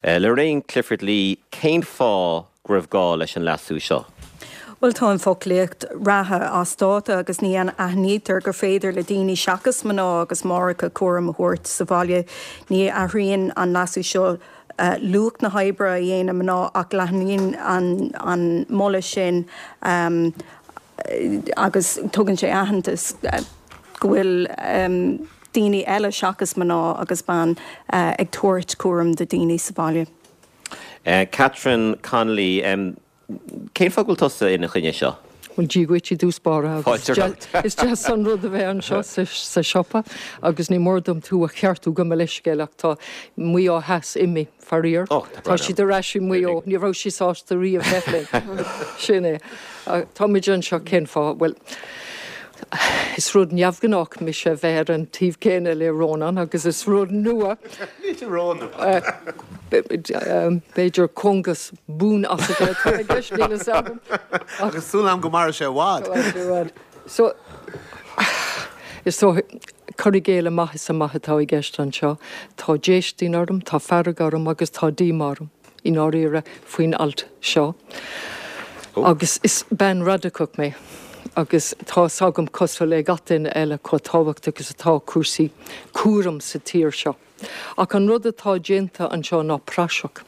Lorraine Clifford-Lee, Cén fáth go raibh gá leis an leasú seo? Bhuel, tá an foclaíocht reatha as dáta agus ní aithnítear gur féidir le daoine seachas mná agus máithreacha cúram a thabhairt sa bhaile. Ní athraíonn an leasú seo luach na hoibre a dhéanann mná ach leathnaíonn an moladh sin agus tugann sé aitheantas go bhfuil daoine eile seachas mná agus ban ag tabhairt cúram do daoine sa bhaile. Catherine Connolly, Cén fáth go bhfuil tusa ina choinne seo? Bhuel, Dia dhuit i dtús báire agus is deas an rud a bheith anseo sa siopa agus ní mór dom tú a cheartú gabh mo leithscéal ach tá Maigh Eo Theas imithe. Faraor, tá siad ar ais i Maigh Eo. Ní raibh sí sásta riamh bheith linn. Sin é. Táimid anseo cén fáth? Bhuel, is rud neamhghnách mise a bheith ar an taobh céanna le Rónán agus is rud nua. B'fhéidir cóngas buan-asaithe atá i gceist, níl fhios agam. Agus súil agam go mairfidh sé i bhfad. So, is dóigh, cur i gcéill amach is amach atá i gceist anseo. Tá déistin orm, tá fearg orm agus tá díomá orm, i ndáiríre, faoin alt seo. Agus is bean radacach mé agus tá fhios agam, cosúil le gach duine eile, chomh tábhachtach is atá cúrsaí cúraim sa tír seo. Ach an rud atá déanta anseo ná praiseach.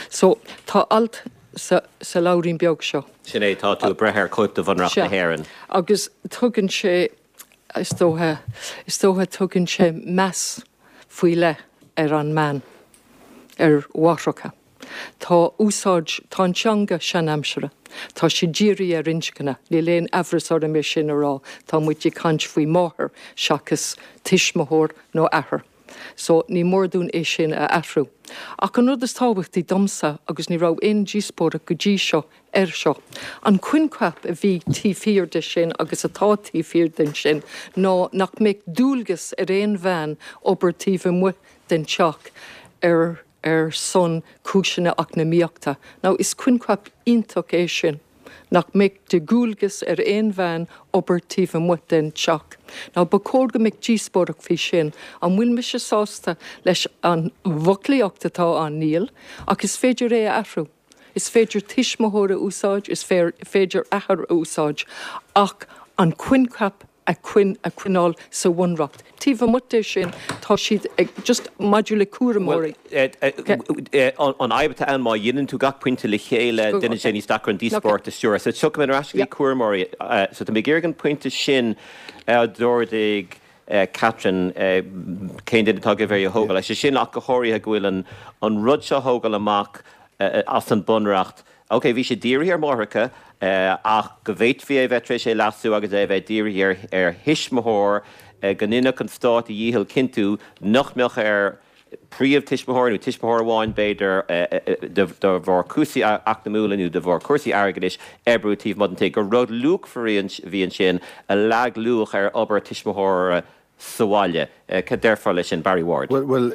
So, tá alt sa, sa leabhairín beag seo. Sin é, tá tú ag breith ar chóip de Bhunreacht na Sea. hÉireann. Agus tugann sé, is dócha, is dócha tugann sé meas faoi leith ar an mbean, ar mháithreacha. Tá úsáid, tá an teanga seanaimseartha. Tá sé dírithe ar inscne, níl aon aimhreas orm é sin a rá, tá muid ag caint faoi máthair seachas tuismitheoir nó athair. So, ní mór dúinn é sin a athrú. Ach an rud is tábhachtaí domsa, agus ní raibh aon díospóireacht go dtí seo air seo, an coincheap a bhí taobh thiar de sin agus atá taobh thiar den sin ná nach mbeadh dualgas ar aon bhean obair taobh amuigh den teach ar ar son cúiseanna eacnamaíochta. Now, is coincheap iontach é sin, nach mbeadh de dhualgas ar aon bhean obair taobh amuigh den teach. Now, ba chóir go mbeadh díospóireacht faoi sin. An bhfuil mise sásta leis an bhfoclaíocht atá ann? Níl. Ach is féidir é a athrú. Is féidir tuismitheoir a úsáid, is féidir athair a úsáid, ach an coincheap a choinneáil sa bhunreacht. Taobh amuigh de sin, tá siad ag, just maidir le cúramóirí. An fhadhb atá ann, má dhéanann tú gach pointe le chéile, déanann sé níos deacra an díospóireacht a stiúradh. So tiocfaidh mé ar ais go dtí cúramóirí. So tá mé ag iarraidh an pointe sin a d'ardaigh Catherine, cén duine atá agaibh é a thógáil? Sé sin ach go háirithe go bhfuil an rud seo a thógáil amach as an bunreacht, Ok, bhí sé dírithe ar mháithreacha, ach go bhféadfaí é a bheith tar éis é leasú agus é a bheith dírithe ar thuismitheoir, go ndéanfadh an stát a dhícheall cinntiú nach mbeadh ar phríomh-tuismitheoir nó tuismitheoir amháin, b'fhéidir, de bharr cúrsaí eacnamúla nó de bharr cúrsaí airgeadais, oibriú taobh amuigh den tigh. Gur rud luachmhar a bhí ansin a leag luach ar obair tuismitheora sa bhaile. Cad déarfá leis sin, Barry Ward? Bhuel,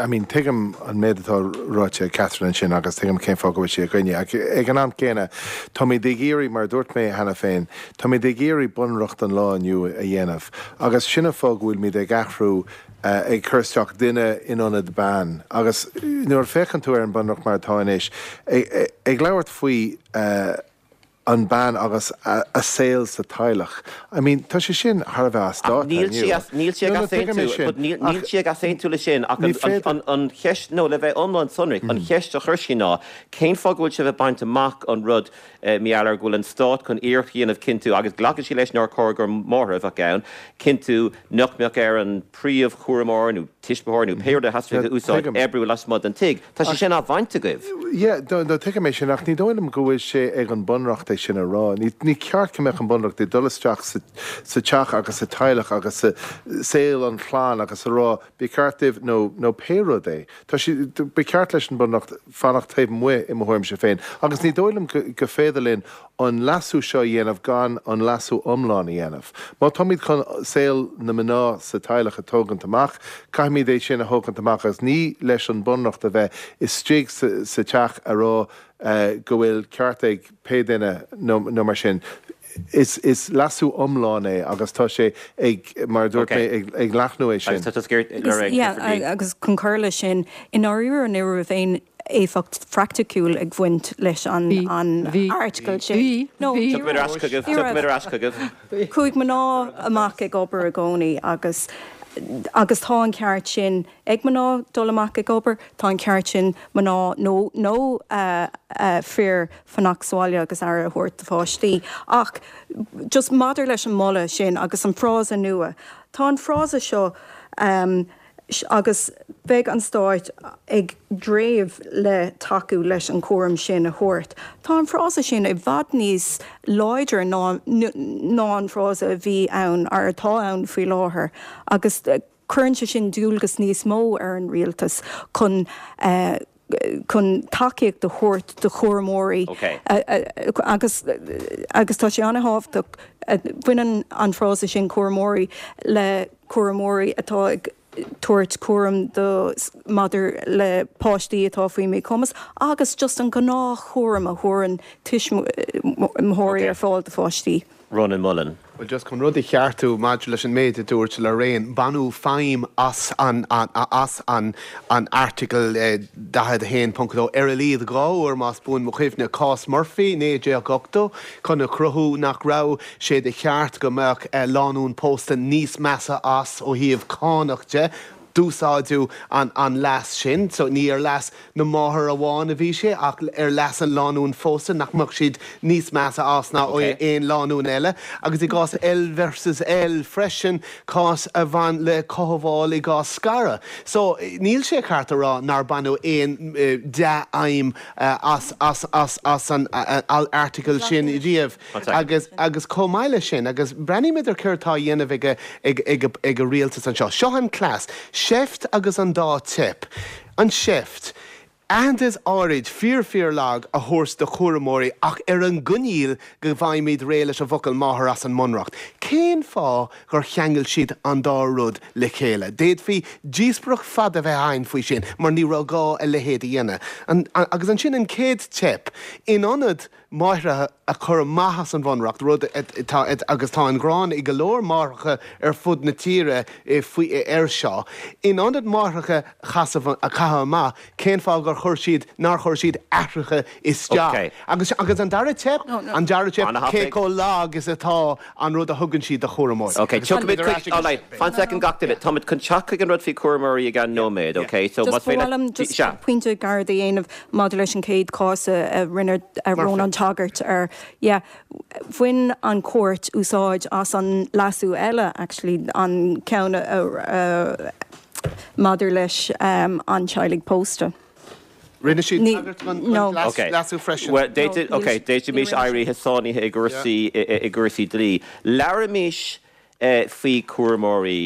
I mean, tuigim an méid atá ráite ag Catherine ansin agus tuigim cén fáth go bhfuil sí i gcoinne. Ach ag an am céanna, táimid ag iarraidh, mar a dúirt mé cheana féin, táimid ag iarraidh bunreacht an lá inniu a dhéanamh agus sin an fáth go bhfuilimid ag athrú, ag cur isteach duine in ionad bean. Agus nuair a féachann tú ar an bunreacht mar atá anois, ag labhairt faoi, an bean agus a saol sa teaghlach. I mean, tá sé sin thar a bheith as dáta inniu. Níl sí ag easaontú, but níl sí ag easaontú leis sin ach an cheist, nó le bheith iomlán sonrach, an cheist a chuir sí ná cén fáth go bhfuil sibh ag baint amach an rud, mar gheall ar go bhfuil an stát chun iarracht a dhéanamh cinntiú, agus glacann sí leis nár chóir gur máthair a bheadh ann, cinntiú nach mbeadh ar an príomhchúramóir nó tuismitheoir nó pé rud a theastaíonn a úsáid, oibriú lasmuigh den tigh. Tá sé sin á bhaint agaibh. Yeah, no, no, tuigim é sin, ach ní dóigh liom go bhfuil sé ag an Bunreacht é sin a rá. Ní, ní ceart go mbeadh an Bunreacht ag dul isteach sa, sa teach agus sa teaghlach agus sa saol an chlann agus a rá, ba cheart daoibh nó, nó pé rud é. Tá sé, ba cheart leis an Bunreacht fanacht taobh amuigh i mo thuairimse féin. Agus ní dóigh liom go, go féidir linn an leasú seo a dhéanamh gan an leasú iomlán a dhéanamh. Má táimid chun saol na mná sa teaghlach a tógaint amach, caithfimid é sin a thógaint amach agus ní leis an Bunreacht a bheith istigh sa teach a rá go bhfuil ceart ag pé duine nó mar sin. Is is leasú iomlán é agus tá sé ag, mar a dúirt mé, ag ag leathnú é sin. Agus tá tusa ag iarraidh, Lorraine, Yeah, Clifford Lee. agus chun cur leis sin, i ndáiríre ní raibh aon éifeacht phraiticiúil ag bhaint leis an Bhí, an bhí, airteagal sin. bhí, No, bhí. ní Tiocfaimid ar raibh. ais chugaibh, Ní raibh. tiocfaimid ar ais chugaibh. Chuaigh mná amach ag obair i gcónaí agus agus tá an ceart sin ag mná dul amach ag obair, tá an ceart sin mná nó nó fir fanacht sa bhaile agus aire a thabhairt do pháistí. Ach just maidir leis an moladh sin agus an frása nua, tá an frása seo agus beidh an Stát ag dréimh le tacú leis an chúram sin a thabhairt. Tá an frása sin i bhfad níos láidre ná ná an frása a bhí ann, or atá ann faoi láthair agus cuireann sé sin dualgas níos mó ar an rialtas chun chun tacaíocht a thabhairt do chúramóirí agus agus tá sé an-thábhachtach, baineann an frása sin cúramóirí le cúramóirí atá ag tabhairt cúram do maidir le páistí atá faoi mhíchumas agus just an gnáthchúram a thabharann tuismitheoirí ar fáil do pháistí. Rónán Mullen. Bhuel, just chun rud a cheartú maidir leis an méid a dúirt Lorraine, baineadh feidhm as an as an an Airteagal 41.2 ar a laghad 2 uair, más buan mo chuimhne, cás Murphy, 1980, chun a chruthú nach raibh sé de cheart go mbeadh lánúin pósta níos measa as ó thaobh cánach de. D'úsáideadh an an leas sin, so ní ar leas na máthar amháin a bhí sé ach ar leas an lánúin phósta, nach mbeadh siad níos measa as ná aon lánúin eile. Agus i gcás L versus L freisin, cás a bhain le cothabháil i gcás scaradh. So níl sé ceart a rá nár baineadh aon dea-fheidhm as as as as an airteagal sin riamh. Agus, agus chomh maith leis sin, agus breathnaímid ar céard atá á dhéanamh ag, ag, ag, ag an rialtas anseo. Seo an cleas, seift agus an dá teip. An seift. Aitheantas áirid, fíor fíor lag, a thabhairt do chúramóirí ach ar an gcoinníoll go bhfaighimid réidh leis an bhfocal máthair as an mBunreacht. Cén fáth gur cheangail siad an dá rud le chéile? D'fhéadfaí díospóireacht fada a bheith againn faoi sin mar ní raibh gá a leithéid a dhéanamh. An, agus ansin an chéad teip. In ionad máithreacha a chur amach as an Bhunreacht, rud atá, agus tá an ghráin ag go leor máithreacha ar fud na tíre faoi, air seo. In ionad máithreacha a chasamh, a chaitheamh amach, cén fáth gur chuir siad, nár chuir siad aithreacha isteach? Agus, agus an dara teip, an dara teip, cé chomh lag is atá an rud a thugann siad do chúramóirí. Ok, tiocfaimid chuig, all right, fan soicind gach duine, táimid chun teacht chuig an rud faoi chúramóirí i gceann nóiméad, ok? So más féidir, just sea. Pointe gairid a dhéanamh maidir leis an chéad chás a rinne Rónán tagairt air, yeah, bhain an chúirt úsáid as an leasú eile, actually, an ceann a maidir leis an teaghlaigh pósta. Rinne siad tagairt don leasú freisin. Bhuel, ok, d'fhéadfaimis éirí sáinnithe i gcúrsaí i gcúrsaí dlí. Labhraímis faoi chúramóirí.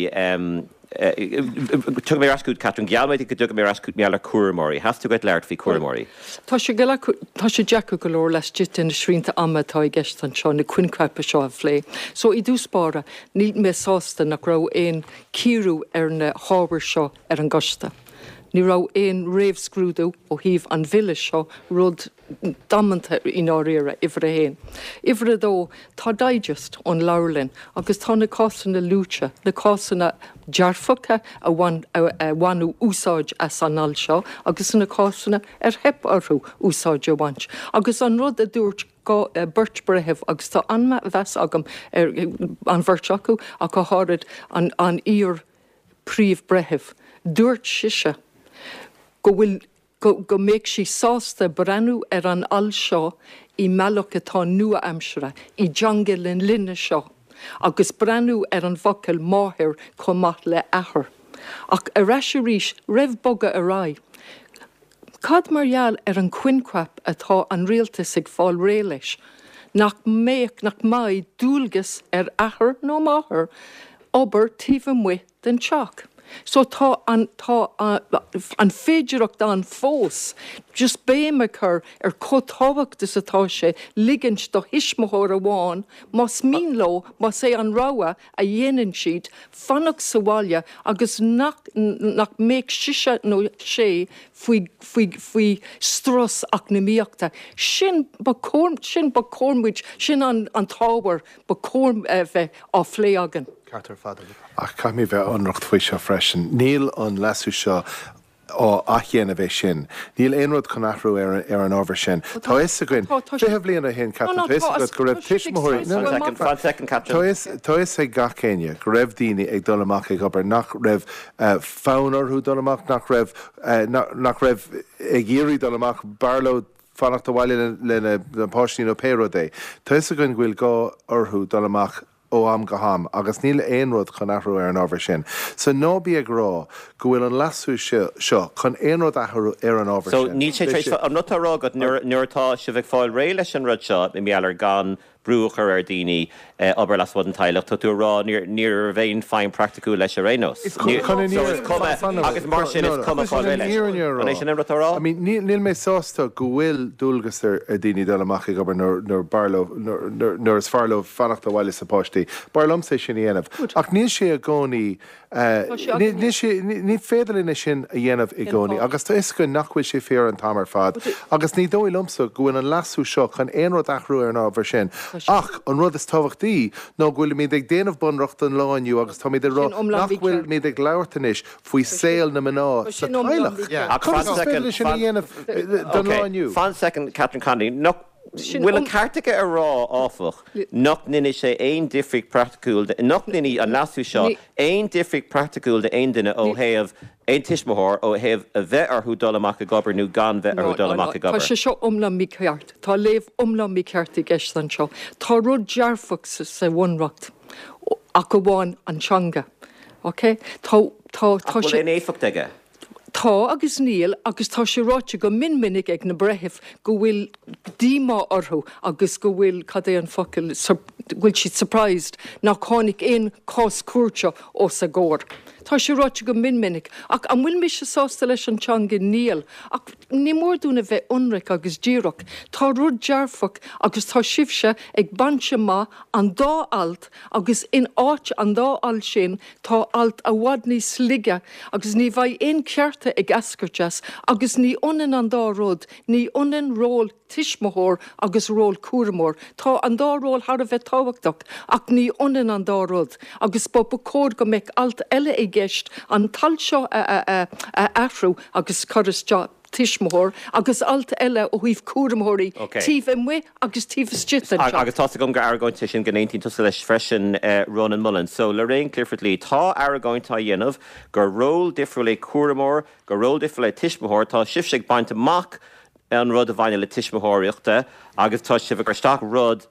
Tiocfaidh mé ar ais chugat, Catherine. Gheall mé duit go dtiocfaidh mé ar ais chugat mar gheall ar chúramóirí. Theastaigh uait labhairt faoi chúramóirí. Tá sé tá sé deacair go leor laistigh de na srianta ama atá i gceist anseo na coincheapa seo a phlé. So i dtús báire, níl mé sásta nach raibh aon cíoradh ar na hábhair seo ar an gcoiste. Ní raibh aon réamhscrúdú ó thaobh an bhille seo, rud damanta i ndáiríre, uimhir a haon. Uimhir a dó, tá digest ón leabharlann agus tá na cásanna luaite, na cásanna dearfacha a bhain, a bhaineadh úsáid as an alt seo agus na cásanna ar theip orthu úsáid a bhaint. Agus an rud a dúirt beirt breitheamh, agus tá an-mheas agam ar an bheirt acu ach go háirid an, an iar, Príomh-Bhreitheamh. Dúirt sise go bhfuil, go, go mbeadh sí sásta breathnú ar an alt seo i mbealach atá nua-aimseartha, i dteanga na linne seo, agus breathnú ar an bhfocal máthair chomh maith le athair. Ach ar ais arís, roimh bogadh ar aghaidh, Cad mar gheall ar an choincheap atá an rialtas ag fáil réidh leis, nach mbeadh, nach mbeidh dualgas ar athair nó máthair obair taobh amuigh den teach? So tá an, tá an féidireacht ann fós just béim a chur ar chomh tábhacht is atá sé ligint do thuismitheoir amháin, más mian leo, más é an rogha a dhéanann siad, fanacht sa bhaile agus nach, nach mbeadh sise nó sé faoi, faoi, faoi strus eacnamaíochta. Sin ba chóir, sin ba chóir muid, sin an, an t-ábhar ba chóir a bheith á phlé againn. Ceart ar fad agat. Ach caithfidh mé bheith ionraic faoi seo freisin. Níl an leasú seo á athdhéanamh é sin. Níl aon rud chun athrú ar ar an ábhar sin. Tá fhios againn, 20 bliain ó shin, Catherine, tá fhios agat go raibh tuismitheoirí, no, no, Fan second, Catherine. Tá fhios ag gach éinne go raibh daoine ag dul amach ag obair nach raibh fonn orthu dul amach, nach raibh, nach raibh ag iarraidh dul amach, b'fhearr leo fanacht abhaile lena bpáistí nó pé rud é. Tá fhios againn go bhfuil gá orthu dul amach ó am go ham agus níl aon rud chun athrú ar an ábhar sin. So ná bí ag rá go bhfuil an leasú seo chun aon rud a athrú ar an ábhar So sin. níl sé tar éis, an rud atá á rá agat nuair atá sibh ag fáil réidh leis an rud seo, i ngeall ar gan brú a chur ar dhaoine obair lasmuigh den teaghlach, tá tú ag rá ní raibh aon feidhm praiticiúil leis ar aon nós. Chun an So is cuma, agus mar sin is cuma fáil réidh leis. An é sin an rud atá á rá? I mean, níl mé sásta go bhfuil dualgas ar dhaoine dul amach ag obair nuair b'fhearr leo, nuair is fearr leo fanacht abhaile leis na páistí. B'fhearr liomsa é sin a dhéanamh. Ach níl sé i gcónaí Níl sé, ní féidir linn é sin a dhéanamh i gcónaí agus tá fhios againn nach bhfuil sé fíor an t-am ar fad agus ní dóigh liomsa go bhfuil an leasú seo chun aon rud a athrú ar an ábhar sin. Ach an rud is tábhachtaí ná go bhfuilimid ag déanamh bunreacht don lá inniu agus táimid ag rá nach bhfuilimid ag labhairt anois faoi saol na mná sa teaghlach. Conas is féidir linn sin a dhéanamh don lá inniu? Fan soicind, Catherine Connolly. Nach bhfuil an ceart aige a rá, áfach, nach ndéanfaidh sé aon difríocht praiticiúil, nach ndéanfaidh an leasú seo aon difríocht praiticiúil d'aon duine ó thaobh, aon tuismitheoir, ó thaobh a bheith orthu dul amach ag obair nó gan bheith orthu dul amach ag obair. Tá sé seo iomlán mícheart. Tá léamh iomlán mícheart i gceist anseo. Tá rud dearfach sa Bhunreacht, ach amháin an teanga. Ok? Tá, tá, tá sé. Ach bhfuil aon éifeacht aige? Tá agus níl, agus tá sé ráite go mion minic ag na breithimh go bhfuil díomá orthu agus go bhfuil, cad é an focal, go bhfuil siad surprised nach tháinig aon chás cúirte os a gcomhair. Tá sé ráite go mion minic. Ach an bhfuil mise sásta leis an teanga? Níl. Ach ní mór dúinn a bheith ionraic agus díreach. Tá rud dearfach agus tá sibhse ag baint amach an dá alt agus in áit an dá alt sin Tá alt i bhfad níos laige agus ní bheidh aon chearta ag eascairt as agus ní ionann an dá rud, ní ionann ról tuismitheoir agus ról cúramóir. Tá an dá ról thar a bheith tábhachtach ach ní ionann an dá rud agus ba ba chóir go mbeadh alt eile i gceist an t-alt seo a athrú agus cur isteach tuismitheoir agus alt eile ó thaobh cúramóirí taobh amuigh agus taobh istigh den teach. Agus tá's agam gur argóint é sin go n-aontaíonn tusa leis freisin, Rónán Mullen. So, Lorraine Clifford-Lee, tá argóint á dhéanamh gur ról difriúil é cúramóir, gur ról difriúil é tuismitheoir. Tá sibhse ag baint amach an rud a bhaineann le tuismitheoireachta agus tá sibh ag cur isteach rud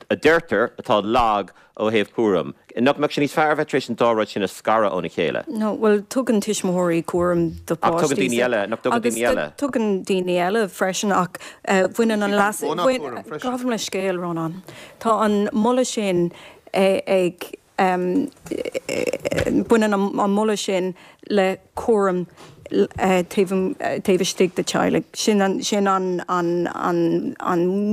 a deirtear atá lag ó thaobh cúraim. Nach mbeadh sé níos fearr a bheith tar éis an dá rud sin a scaradh óna chéile? No, bhuel, tugann tuismitheoirí cúram do Ach tugann daoine eile, nach dtugann daoine eile? Agus tugann daoine eile freisin ach baineann an leas, gabh mo leithscéal, Rónán. Tá an moladh sin ag Baineann an moladh sin le cúram taobh istigh de teaghlaigh. Sin an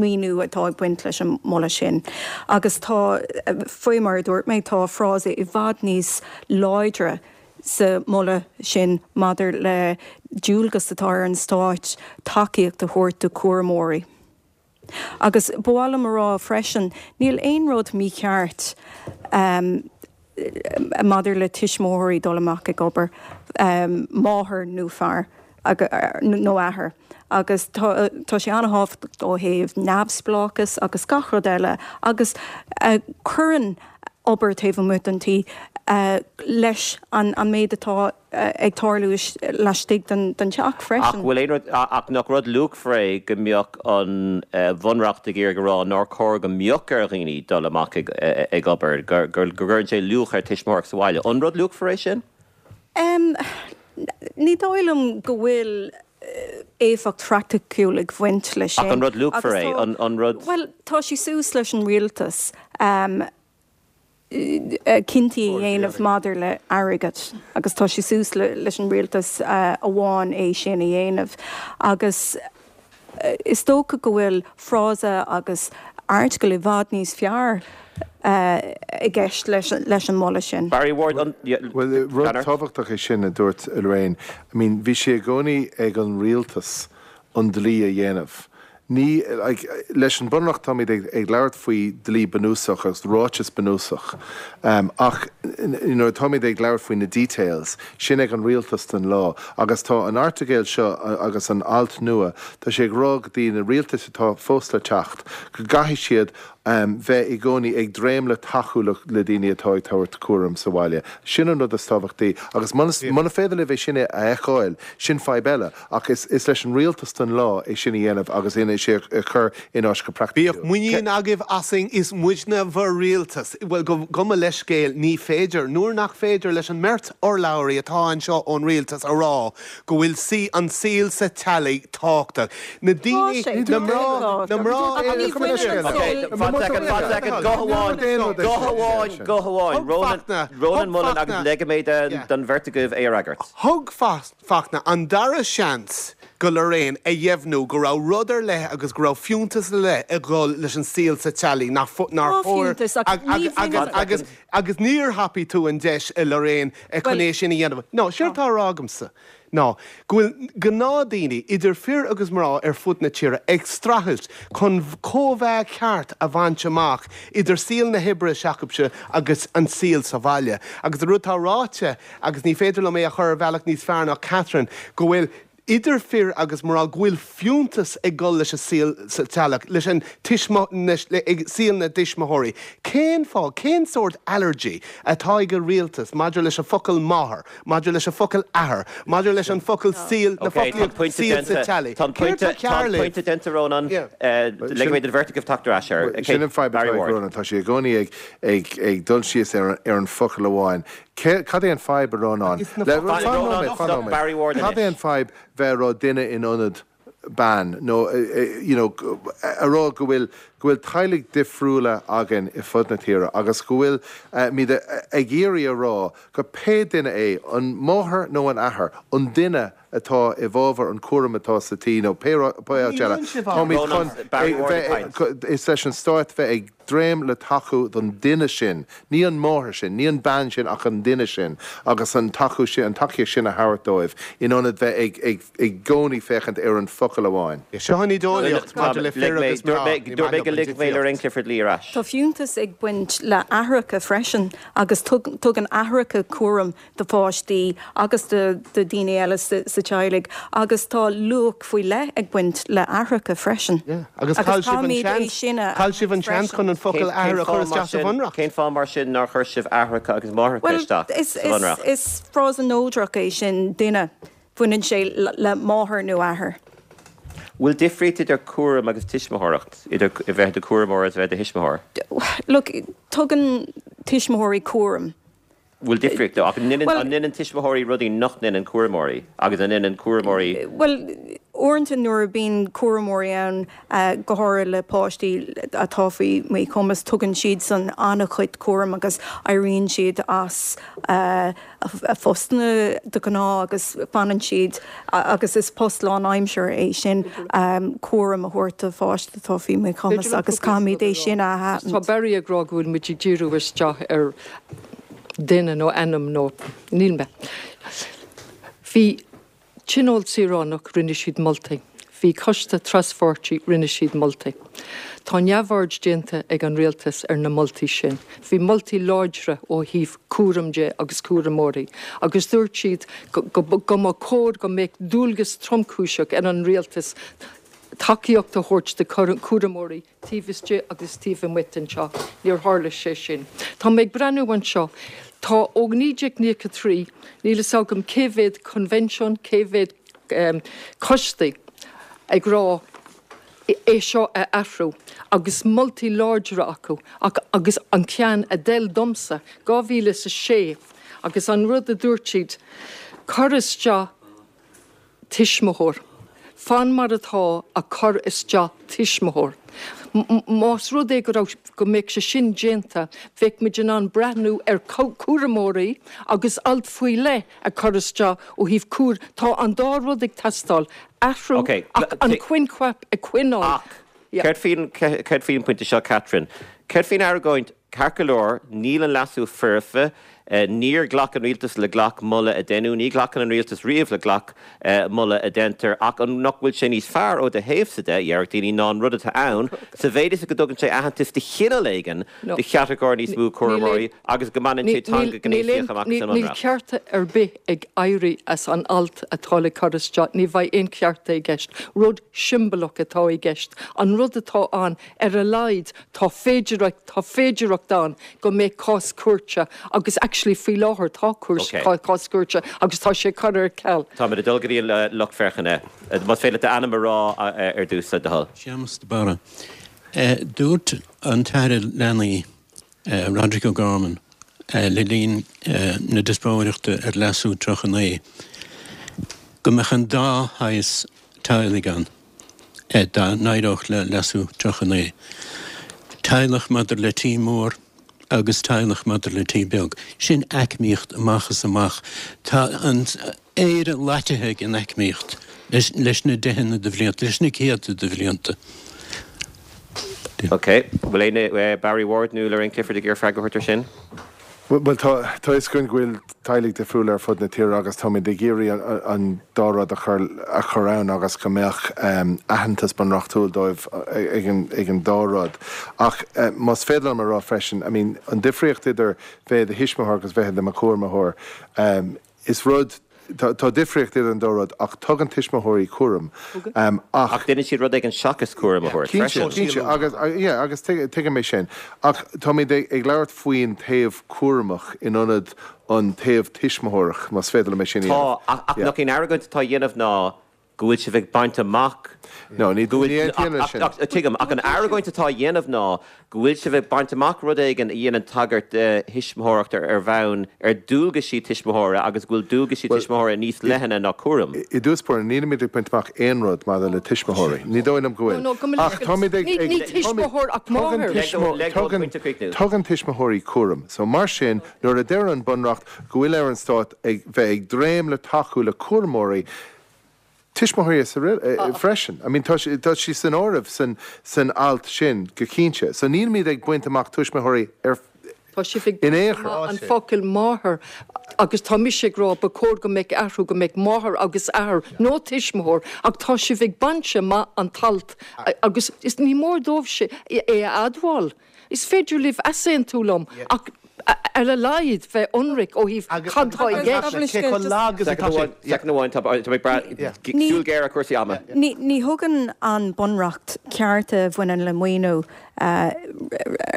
míniú atá ag baint leis an moladh sin. Agus tá, faoi mar a dúirt mé, tá frása i bhfad níos láidre sa moladh sin maidir le dualgas atá ar an Stát tacaíocht a thabhairt do chúramóirí. Agus ba mhaith liom a rá freisin, níl aon rud mícheart maidir le tuismitheoirí dul amach ag obair, máthair nó fear, nó athair, agus tá sé an-thábhachtach ó thaobh neamhspleáchas agus gach rud eile agus cuireann obair taobh amuigh den tí leis an méid atá ag tarlú laistigh den teach freisin. Ach bhfuil aon rud, ach nach rud luachmhar é go mbeadh an Bhunreacht ag iarraidh a rá nár chóir go mbeadh ar dhaoine dul amach ag obair, go gcuireann sé luach ar tuismitheoireacht sa bhaile. An rud luachmhar é sin? Ní dóigh liom go bhfuil éifeacht phraiticiúil ag bhaint leis sin. Ach an rud luachmhar é? An rud. Bhuel, tá sé suas leis an rialtas. Cinntí a dhéanamh maidir le airgead agus tá sé suas leis an rialtas amháin é sin a dhéanamh agus is dócha go bhfuil frása agus airteagal i bhfad níos fearr i gceist leis an moladh sin. Barry Ward, an. Bhuel, rud tábhachtach é sin a dúirt Lorraine. I mean, bhí sé i gcónaí ag an rialtas an dlí a dhéanamh. Ní, like, leis an Bunreacht táimid ag, ag labhairt faoi dlí bunúsach agus ráiteas bunúsach, ach nuair atáimid ag labhairt faoi na details, sin ag an rialtas don lá. Agus tá an airteagail seo agus an alt nua, tá sé ag rá go dtí na rialtais atá fós le teacht, go gcaithfidh siad bheith i gcónaí ag dréim le tacú le, le daoine atá ag tabhairt cúram sa bhaile. Sin an rud is tábhachtaí. Agus muna, muna féidir libh é sin a fheiceáil, sin fadhb eile. Ach is leis an rialtas don lá é sin a dhéanamh agus é sin a chur in áit go praiticiúil. Bíodh muinín agaibh asainn, is muidne bhur rialtas. Bhuel, gabh mo leithscéal, ní féidir. Nuair nach féidir leis an mbeirt urlabhraí atá anseo ón rialtas a rá go bhfuil sí, an saol sa teaghlaigh tábhachtach. Na daoine, na mná, na mná. Fan soicind, fan soicind, guth amháin, guth amháin, guth amháin. Rónán, Rónán Mullen agus ligfidh mé don bheirt agaibh é a fhreagairt. Thug Fachtna an dara seans go Lorraine a dheimhniú go raibh rud ar leith agus go raibh fiúntas ar leith ag dhul leis an saol sa teaghlaigh nach nár chóir agus agus níor thapaigh tú an deis a Lorraine chun é sin a dhéanamh. No, séard atá á rá agamsa ná go bhfuil gnáthdaoine, idir fir agus mná ar fud na tíre, ag streachailt chun cóimheá ceart a bhaint amach idir saol na hoibre s'acubhsa agus an saol sa bhaile. Agus an rud atá ráite agus ní féidir liom é a chur ar bhealach níos fearr ná Catherine, go bhfuil, idir fir agus mná, go bhfuil fiúntas ag dul leis an saol sa teaghlach, leis an tuismi, ag saol na dtuismitheoirí. Cén fáth, cén sórt allergy atá ag an rialtas maidir leis an focal máthair, maidir leis an focal athair, maidir leis an focal saol, na foclaíocht saol sa teaghlaigh? Tá an pointe, tá an pointe déanta, Rónán. Ligfidh mé don bheirt agaibh teacht ar ais air. Sin an fadhb atá ag Rónán, tá sé i gcónaí ag, ag, ag dul síos ar an focal amháin. Cad é an fadhb, a Rónáin? Fan nóiméad, fan nóiméad. Cad é an fadhb bheith a rá duine in ionad bean nó you know a rá go bhfuil go bhfuil teaghlaigh difriúla againn i fud na tíre agus go bhfuil muid ag iarraidh a rá go pé duine é, an máthair nó an athair, an duine atá i bhfabhar an cúram atá sa tí nó pé áit eile, táimid chun bheith, is leis an stát bheith ag dréim le tacú don duine sin, ní an máthair sin, ní an bean sin ach an duine sin agus an tacú sin, an tacaíocht sin a thabhairt dóibh in ionad bheith ag, ag, i gcónaí féachaint ar an focal amháin. Seo an ídeolaíocht maidir le fir agus mná, ní maith liom an difríocht. Tá fiúntas ag baint le aithreacha freisin agus tugann aithreacha cúram do pháistí agus do dhaoine eile sa teaghlaigh agus tá luach faoi leith ag baint le aithreacha freisin. Agus chaill sibh an seans, chaill sibh an seans chun an focal athair a chur isteach sa Bhunreacht. Cén fáth mar sin nár chuir sibh aithreacha agus máithreacha isteach sa Bhunreacht? Bhuel, is frása neodrach é sin, duine. Baineann sé le máthair nó athair. Bhfuil difríocht idir cúram agus tuismitheoireacht, idir a bheith i do chúramóir agus a bheith i do thuismitheoir? Look, tugann tuismitheoirí cúram. bhfuil difríocht ach an ndéanann tuismitheoirí rudaí nach ndéanann cúramóirí agus an ndéanann cúramóirí. Bhuel, uaireanta nuair a bíonn cúramóirí ann, go háirithe le páistí atá faoi mhíchumas, tugann siadsan an-chuid cúraim agus éiríonn siad as a phostanna de ghnáth agus fanann siad agus is post lánaimseartha é sin cúram a thabhairt do pháiste atá faoi mhíchumas agus caithfimid é sin a aithint. Tá Barry ag rá go bhfuil muid ag díriú isteach ar duine nó ainm nó níl mé. Bhí Tionól Saoránach, rinne siad moltaí. Bhí Coiste Traspháirtí, rinne siad moltaí. Tá neamhaird déanta ag an Rialtas ar na moltaí sin. Bhí moltaí láidre ó thaobh cúram de agus cúramóirí agus dúirt siad go mba chóir go mbeadh dualgas tromchúiseach ar an Rialtas tacaíocht a thabhairt do chúramóirí taobh istigh agus taobh amuigh den teach. Níor tharla sé sin. Tá mé ag breathnú anseo. Tá ó 1993, níl fhios agam cé mhéad coinbhinsiún, cé mhéad coistí ag rá é seo a athrú agus moltaí láidre acu ach agus an ceann a d'fheil domsa, 2006 agus an rud a dúirt siad, cuir isteach tuismitheoir. Fan mar atá ach cuir isteach tuismitheoir. Más rud é go raibh, go mbeadh sé sin déanta, bheadh muid in ann breathnú ar chúramóirí agus alt faoi leith a chur isteach ó thaobh cúr, tá an dá rud ag teastáil, athrú ach an coincheap a choinneáil. Ach céard faoin, céard faoin bpointe seo, Catherine? Céard faoin argóint, ceart go leor, níl an leasú foirfe, níor ghlac an rialtas le gach moladh a deineadh, ní ghlacann an rialtas riamh le gach moladh a deintear, ach an nach bhfuil sé níos fearr ó do thaobhsa de, déarfadh daoine, ná an rud atá ann, sa mhéid is go dtugann sé aitheantas de chineál éigin do chatagóir níos mó cúramóirí agus go mbaineann sé teanga ghnéasach amach as an Níl cearta ar bith ag éirí as an alt atá le cur isteach, ní bheidh aon chearta i gceist. Rud siombalach atá i gceist. An rud atá ann, ar a laghad, tá féidireacht, tá féidireacht ann go mbeidh cás cúirte agus actually faoi láthair tá cás cúirte agus tá sé curtha ar ceal. Táimid ag dul go dtí an lucht féachana. Más féidir leat d'ainm a rá ar dtús, le do thoil. Séamus de Barra. Dúirt an tAire Leanaí, Roderic O'Gorman, le linn na diospóireachta ar Leasú 39 go mbeadh an dá shaghas teaghlaigh ann dá n-éireodh le Leasú 39, teaghlach maidir le tí mór agus teaghlach maidir le tí beag. Sin aicmíocht amach is amach. Tá an. Éire loitithe ag an aicmíocht leis na deicheanna de bhlianta, leis na céadta de bhlianta. Ok. Bhfuil éinne, Barry Ward nó Lorraine Clifford ag iarraidh freagra a thabhairt ar sin? Bhuel, tá a fhios againn go bhfuil teaghlaigh difriúla ar fud na tíre agus táimid ag iarraidh an dá rud a chur a chur ann agus go mbeadh aitheantas bunreachtúil dóibh ag an dá rud. Ach más féidir liom a rá freisin, I mean, an difríocht idir bheith i do thuismitheoir agus bheith i do chúramóir, Is rud, tá difríocht idir an dá rud ach tugann tuismitheoirí cúram ach. Ach déanann siad rud éigin seachas cúram a thabhairt freisin. Cinnte, cinnte agus, yeah, agus tuigim é sin. Ach táimid ag labhairt faoin taobh cúramach in ionad an taobh tuismitheoireach, más féidir liom é sin a dhéanamh. Tá, ach nach í an argóint atá á dhéanamh ná go bhfuil sibh ag baint amach No, ní go bhfuil, aontaím leis sin. ach, tuigim, ach an argóint atá á dhéanamh ná go bhfuil sibh ag baint amach rud éigin a dhéanann tagairt do thuismitheoireacht ar ar bhonn ar dualgaisí tuismitheora agus go bhfuil dualgaisí Bhuel, tuismitheora níos leithne ná cúram. I dtús báire, nílimid ag baint amach aon rud maidir le tuismitheoirí. Ní dóigh liom go bhfuil. No, no, go mba Ach táimid ag, ní, ag, ní tuismitheoir ach tugann máthair. Leg dó, leg dó an tugann, pointe a chríochnú. tugann tuismitheoirí cúram. So, mar sin, nuair a deir an Bunreacht go bhfuil ar an Stát ag bheith ag dréim le tacú le cúramóirí, tuismitheoirí freisin. I mean tá tá sí san áireamh san san alt sin go cinnte. So nílimid ag baint amach tuismitheoirí ar Tá sibh ag in aon chor. an focal máthair agus tá mise ag rá ba chóir go mbeadh athrú go mbeadh máthair agus athair nó tuismitheoir ach tá sibh ag baint amach an t-alt agus is ní mór dóibh é a admháil. Is féidir libh easaontú liom ach ar a laghad bheith ionraic ó thaobh cad tá i gceist. Cé chomh lag is atá sé. Soicind amháin, tá mé ag brath súil ghéar ar chúrsaí ama. Ní thugann an Bunreacht cearta a bhaineann le maoiniú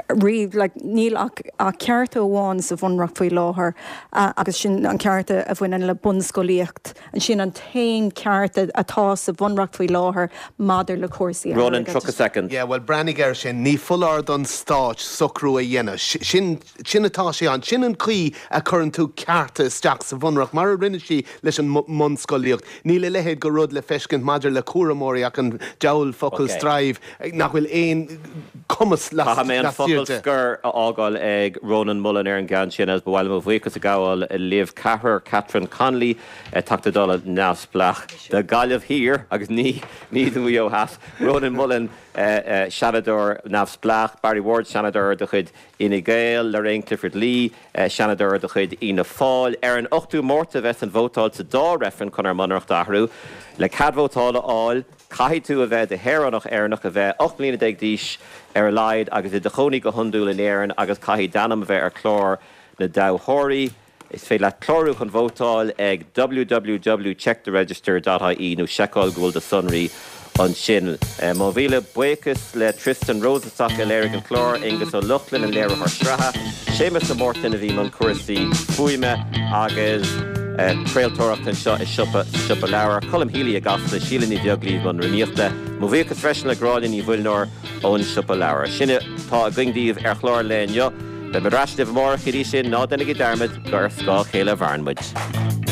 riamh. Níl ach cearta amháin sa Bhunreacht faoi láthair agus sin an ceart a bhaineann le bunscolaíocht. Sin an t-aon ceart atá sa Bhunreacht faoi láthair maidir le cúrsaí Ronan, airgeadais. 30 soicind. Yeah, bhuel, breathnaigh air sin. Ní foláir don Stát socrú a dhéanamh. Sin, sin atá sé ann. Sin an chaoi a chuireann tú cearta isteach sa Bhunreacht, mar a rinne sí leis an mbunscolaíocht. Níl a leithéid de rud le feiscint maidir le cúramóirí ach an diabhal focal Ok. strive, nach bhfuil aon cumas Caithfidh mé an lastiar focal de. scoir a fhágáil ag Rónán Mullen ar an gceann sin agus ba mhaith liom mo bhuíochas a ghabháil libh ceathrar, Catherine Connolly, Teachta Dála neamhspleách do Ghaillimh Thiar agus ní ní do Mhaigh Eo Theas, Rónán Mullen, Seanadóir neamhspleách, Barry Ward, Seanadóir de chuid Fhine Gael, Lorraine Clifford Lee, Seanadóir de chuid Fhianna Fáil. Ar an 8ú Márta a bheas an vótáil sa dá reifreann chun ár mBunreacht a athrú. Le cead vótála a fháil, Caithfidh tú a bheith i do shaoránach Éireannach, a bheith 18 mbliana d'aois ar a laghad agus i do chónaí go hiondúil in Éirinn agus caithfidh d'ainm a bheith ar chlár na dtoghthóirí. Is féidir leat clárú chun vótáil ag www checktheregister dot ie nó seiceáil go bhfuil do sonraí ansin. Mo mhíle buíochas le Tristan Rosenstock a léirigh an clár, Aengus Ó Lochlainn an léiritheoir sraithe, Séamus de Mártain a bhí i mbun cúrsaí fuaime agus craoltóireachta anseo i siopa sa Siopa Leabhar, Colm Healy i gCasla, Síle Ní Bheaglaoí i mbun rúnaíochta. Mo bhuíochas freisin le Gráinne Ní Mhuilneoir ón Siopa Leabhar. Sin atá againn daoibh ar chlár an lae inniu. Beidh muid ar ais libh amárach, go dtí sin, ná déanaigí dearmad gur ar scáth a chéile a mhaireann muid.